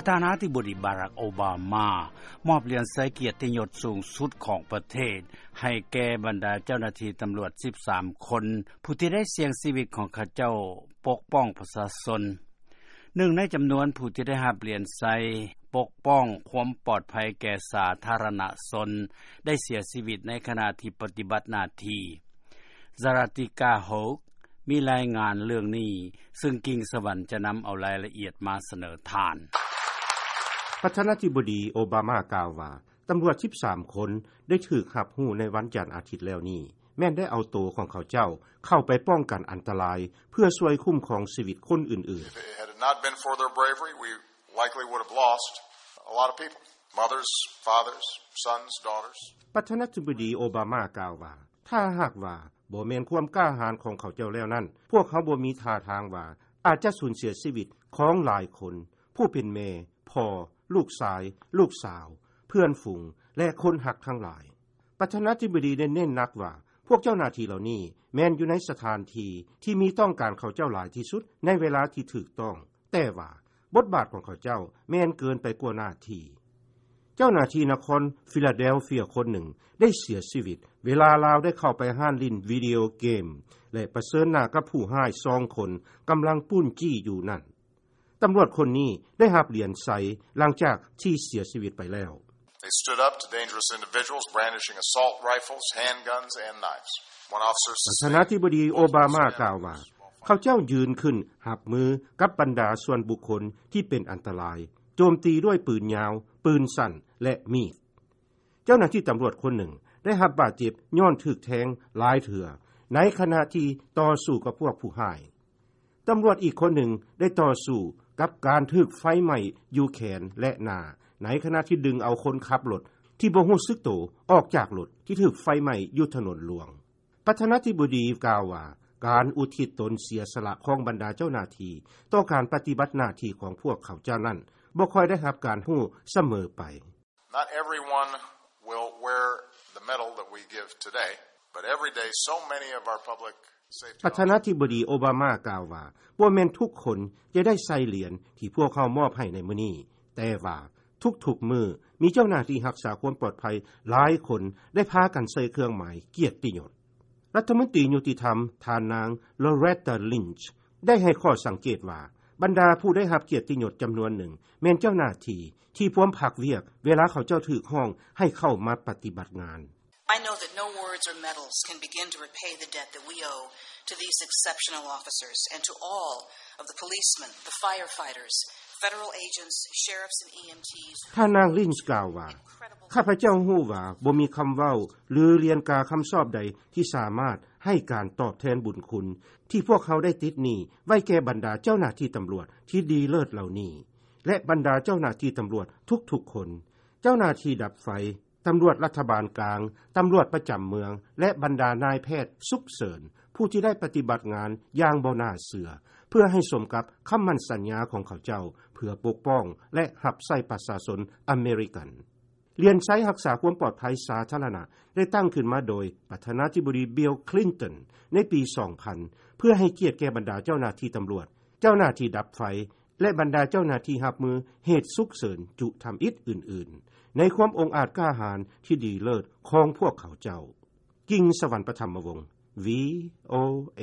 ປະທານາທິບໍດີ ບາຣັກ ໂອບາມາ ມອບຫຼຽນໄຊກຽດຕິຍົດສູງສຸດຂອງປະເທດ ໃຫ້ແກ່ບັນດາເຈົ້າໜ້າທີ່ຕຳຫຼວດ ສິບສາມ ຄົນ ຜູ້ທີ່ໄດ້ສ່ຽງຊີວິດຂອງເຂົາເຈົ້າປົກປ້ອງປະຊາຊົນ. ໜຶ່ງໃນຈຳນວນຜູ້ທີ່ໄດ້ຮັບຫຼຽນໄຊປົກປ້ອງຄວາມປອດໄພແກ່ສາທາລະນະຊົນ ໄດ້ເສຍຊີວິດໃນຂະນະທີ່ປະຕິບັດໜ້າທີ່. ຊາຣາຕິກາ ໂຮກ ມີລາຍງານເລື່ອງນີ້ ຊຶ່ງກິ່ງສະຫວັນຈະນຳເອົາລາຍລະອຽດມາສະເໜີທ່ານ. ປະທານາທິບໍດີ ໂອບາມາ ກ່າວວ່າ ຕຳຫຼວດ ສິບສາມ ຄົນ ໄດ້ຖືກຮັບຮູ້ໃນວັນຈັນອາທິດແລ້ວນີ້ ແມ່ນໄດ້ເອົາໂຕຂອງເຂົາເຈົ້າເຂົ້າໄປປ້ອງກັນອັນຕະລາຍ ເພື່ອຊ່ວຍຄຸ້ມຄອງຊີວິດຄົນອື່ນໆ. If it had not been for their bravery, we likely would have lost a lot of people. Mothers, fathers, sons, daughters. ປະທານາທິບໍດີ ໂອບາມາ ກ່າວວ່າ ຖ້າຫາກວ່າບໍ່ແມ່ນຄວາມກ້າຫານຂອງເຂົາເຈົ້າແລ້ວນັ້ນ ພວກເຮົາບໍ່ມີທ່າທາງວ່າອາດຈະສູນເສຍຊີວິດຂອງຫຼາຍຄົນ ຜູ້ເປັນແມ່, ພໍ່, ລູກຊາຍ, ລູກສາວ, ເພື່ອນຝູງ ແລະ ຄົນຮັກທັງຫຼາຍ. ປະທານາທິບໍດີໄດ້ເນັ້ນໜັກວ່າ ພວກເຈົ້າໜ້າທີ່ເຫຼົ່ານີ້ແມ່ນຢູ່ໃນສະຖານທີ່ທີ່ມີຕ້ອງການເຂົາເຈົ້າຫຼາຍທີ່ສຸດໃນເວລາທີ່ຖືກຕ້ອງ, ແຕ່ວ່າບົດບາດຂອງເຂົາເຈົ້າແມ່ນເກີນໄປກວ່າໜ້າທີ່. ເຈົ້າໜ້າທີ່ນະຄອນຟີລາເດລເຟຍຄົນໜຶ່ງໄດ້ເສຍຊີວິດ ເວລາລາວໄດ້ເຂົ້າໄປຮ້ານຫຼິ້ນວິດີໂອເກມ ແລະ ປະເຊີນໜ້າກັບຜູ້ຮ້າຍສອງຄົນກຳລັງປຸ້ນຈີ້ຢູ່ນັ້ນ. ຕຳຫຼວດຄົນນີ້ໄດ້ຮັບຫຼຽນໄຊຫຼັງຈາກທີ່ເສຍຊີວິດໄປແລ້ວ. They stood up to dangerous individuals brandishing assault rifles, handguns, and knives. One officer ປະທານາທິບໍດີໂອບາມາກ່າວວ່າ ເຂົາເຈົ້າຢືນຂຶ້ນຮັບມືກັບບັນດາສ່ວນບຸກຄົນທີ່ເປັນອັນຕະລາຍ ໂຈມຕີດ້ວຍປືນຍາວ, ປືນສັ້ນ ແລະ ມີດ. ເຈົ້າໜ້າທີ່ຕຳຫຼວດຄົນໜຶ່ງໄດ້ຮັບບາດເຈັບຍ້ອນຖືກແທງຫຼາຍເທື່ອ ໃນຂະນະທີ່ຕໍ່ສູ້ກັບພວກຜູ້ຮ້າຍ. ຕຳຫຼວດອີກຄົນໜຶ່ງໄດ້ຕໍ່ສູ້ກັບການຖືກໄຟໄໝ້ຢູ່ແຂນ ແລະ ໜ້າ ໃນຂະນະທີ່ດຶງເອົາຄົນຂັບລົດທີ່ບໍ່ຮູ້ສຶກໂຕອອກຈາກລົດທີ່ຖືກໄຟໄໝ້ຢູ່ຖະໜົນຫຼວງ. ປະທານາທິບໍດີກ່າວວ່າ ການອຸທິດຕົນເສຍສະຫຼະຂອງບັນດາເຈົ້າໜ້າທີ່ຕໍ່ການປະຕິບັດໜ້າທີ່ຂອງພວກເຂົາເຈົ້ານັ້ນ ບໍ່ຄ່ອຍໄດ້ຮັບການຮູ້ສະເໝີໄປ. Not everyone will wear the medal that we give today, but every day so many of our public safety ປະທານາທິບໍດີໂອບາມາກ່າວວ່າ ບໍ່ແມ່ນທຸກຄົນຈະໄດ້ໃສ່ຫຼຽນທີ່ພວກເຮົາມອບໃຫ້ໃນມື້ນີ້, ແຕ່ວ່າທຸກໆມື້ມີເຈົ້າໜ້າທີ່ຮັກສາຄວາມປອດໄພຫຼາຍຄົນໄດ້ພາກັນໃສ່ເຄື່ອງໝາຍກຽດຕິຍົດ. ລັດຖະມົນຕີຍຸຕິທຳ ທ່ານນາງ ໂລເຣຕາ ລິນຊ໌ ໄດ້ໃຫ້ຂໍ້ສັງເກດວ່າ ບັນດາຜູ້ໄດ້ຮັບກຽດຕິຍົດຈຳນວນໜຶ່ງ ແມ່ນເຈົ້າໜ້າທີ່ທີ່ພວມພັກວຽກເວລາເຂົາເຈົ້າຖືກຮ້ອງໃຫ້ເຂົ້າມາປະຕິບັດງານ. I know that no words or medals can begin to repay the debt that we owe to these exceptional officers and to all of the policemen, the firefighters, federal agents, sheriffs and E M Ts. ທ່ານນາງ ລິນຊ໌ ກ່າວວ່າ ຂ້າພະເຈົ້າຮູ້ວ່າບໍ່ມີຄຳເວົ້າ ຫຼື ຫຼຽນກາຄຳຊອບໃດທີ່ສາມາດໃຫ້ການຕອບແທນບຸນຄຸນທີ່ພວກເຮົາໄດ້ຕິດໜີ້ໄວ້ແກ່ບັນດາເຈົ້າໜ້າທີ່ຕຳຫຼວດທີ່ດີເລີດເຫຼົ່ານີ້ ແລະ ບັນດາເຈົ້າໜ້າທີ່ຕຳຫຼວດທຸກໆຄົນ, ເຈົ້າໜ້າທີ່ດັບໄຟ, ຕຳຫຼວດລັດຖະບານກາງ, ຕຳຫຼວດປະຈຳເມືອງ ແລະ ບັນດານາຍແພດສຸກເສີນ ຜູ້ທີ່ໄດ້ປະຕິບັດງານຢ່າງບໍ່ໜ້າເຊື່ອ ເພື່ອໃຫ້ສົມກັບຄຳໝັ້ນສັນຍາຂອງເຂົາເຈົ້າ ເພື່ອປົກປ້ອງ ແລະ ຮັບໃຊ້ປະຊາຊົນອາເມລິກັນ. ຫຼຽນໄຊຮັກສາຄວາມປອດໄພສາທາລະນະ ໄດ້ຕັ້ງຂຶ້ນມາໂດຍປະທານາທິບໍດີ ບິວ ຄລິນຕັນ ໃນປີສອງພັນ ເພື່ອໃຫ້ກຽດແກ່ບັນດາເຈົ້າໜ້າທີ່ຕຳຫຼວດ, ເຈົ້າໜ້າທີ່ດັບໄຟ ແລະ ບັນດາເຈົ້າໜ້າທີ່ຮັບມືເຫດສຸກເສີນຈຸທຳອິດອື່ນໆ ໃນຄວາມອົງອາດກ້າຫານທີ່ດີເລີດຂອງພວກເຂົາເຈົ້າ. ກິ່ງສະຫວັນ ປະຖຳມະວົງ ວີ ໂອ ເອ.